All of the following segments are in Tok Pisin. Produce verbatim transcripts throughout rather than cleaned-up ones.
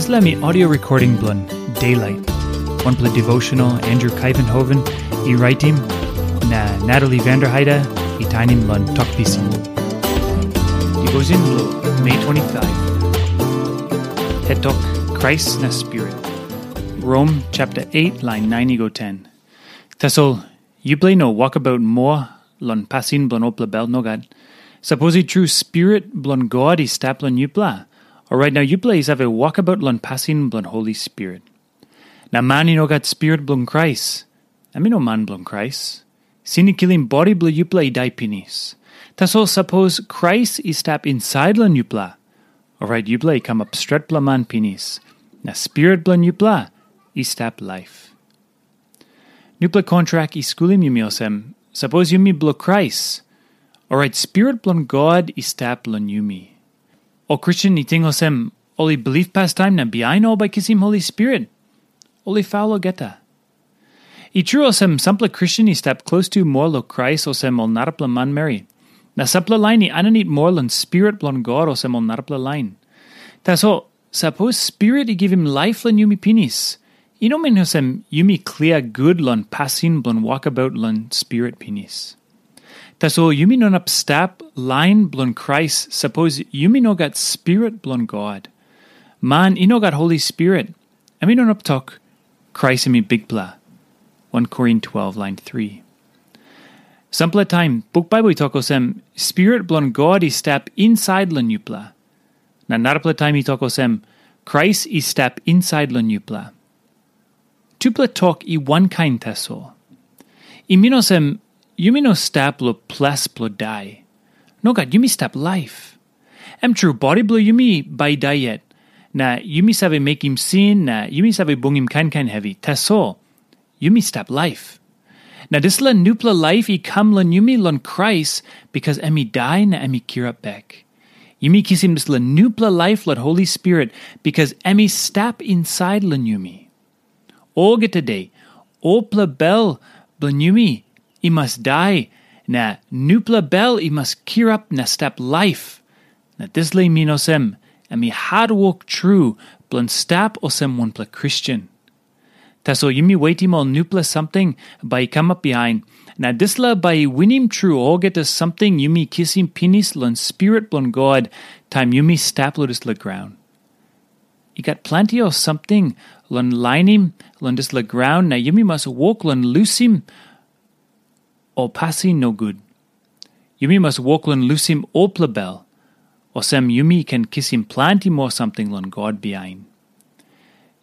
Dispela mi audio recording bilong Daylight, wanpela devotional Andrew Kaivenhoven i raitim, na Natalie Vanderheide i tainim long Tok Pisin. Devotion bilong Mei twenty-five. Hetok Krais na Spirit. Rom chapter eight, line nine i go ten. Tasol yupela i no wokabaut moa long pasin bilong olpela bel, nogat. Sapos i tru Spirit bilong God i stap long yupela, orait nau yupela i save wokabaut long pasin bilong Holi Spirit. Na man i no gat Spirit bilong Krais, em i no man bilong Krais. Sin i kilim bodi bilong yupela i dai pinis. Tasol sapos Krais i stap insait long yupela, orait yupela i kamap stretpela man pinis, na Spirit bilong yupela i stap laip. Nupela kontrak i skulim yumi olsem, sapos yumi bilong Krais, orait Spirit bilong God i stap long yumi. Ol Kristen i ting olsem, ol i bilip pastaim na bihain ol bai kisim Holi Spirit. Ol i faul olgeta. I tru olsem, sampela Kristen i stap klostu moa long Krais olsem ol narapela manmeri. Na sampela lain i aninit moa long Spirit bilong God olsem ol narapela lain. Tasol, sapos Spirit i givim laip long yumi pinis, i no min olsem yumi klia gut long pasin bilong wokabaut long Spirit pinis. Tasol yumi no inap stap lain bilong Krais sapos yumi no gat Spirit bilong God. Man i no gat Holi Spirit, em i no inap tok, Krais em i Bikpela. One Korin twelve, line three. Sampela taim, buk Bible i tok olsem, Spirit bilong God i stap insait long yupela. Na narapela taim i tok olsem, Krais i stap insait long yupela. Tupela tok i wankain tasol. I min olsem, yumi no stap long ples bilong dai. Nogat, yumi stap laip. Em tru, bodi bilong yumi bai i dai yet, na yumi save mekim sin, na yumi save bungim kain kain hevi. Tasol, yumi stap laip. Na dispela nupela laip i kam long yumi long Krais, bikas em i dai na em i kirap bek. Yumi kisim dispela nupela laip long Holi Spirit, bikas em i stap insait long yumi. Olgeta de, olpela bel bilong yumi i mas dai, na nupela bel i mas kirap na stap laip. Na dispela i min olsem, em i hatwok tru bilong stap olsem wanpela Kristen. Tasol yumi wetim ol nupela samting bai i kamap bihain, na dispela bai i winim tru olgeta samting yumi kisim pinis long Spirit bilong God taim yumi stap long dispela graun. I gat planti ol samting long lainim long dispela graun, na yumi mas wok long lusim ol pasin nogut. Yumi mas wok long lusim olpela bel, olsem yumi ken kisim planti moa samting long God bihain.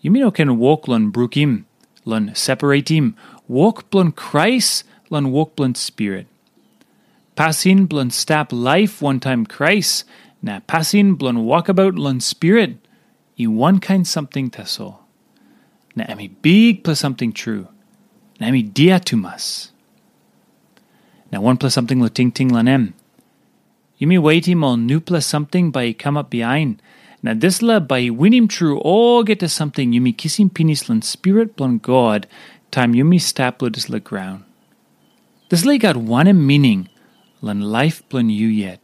Yumi no ken wok long brukim, long separatim wok bilong Krais long wok bilong Spirit. Pasin bilong stap laip wantaim Krais na pasin bilong wokabaut long Spirit i wankain samting tasol. Na em i bikpela samting tru, na em i dia tumas. Na wanpela samting long tingting long em. Yumi wetim ol nupela samting bai i kamap bihain, na dispela bai i winim tru olgeta samting yumi kisim pinis long Spirit bilong God taim yumi stap long dispela graun. Dispela i gat wanem mining long laip bilong yu yet?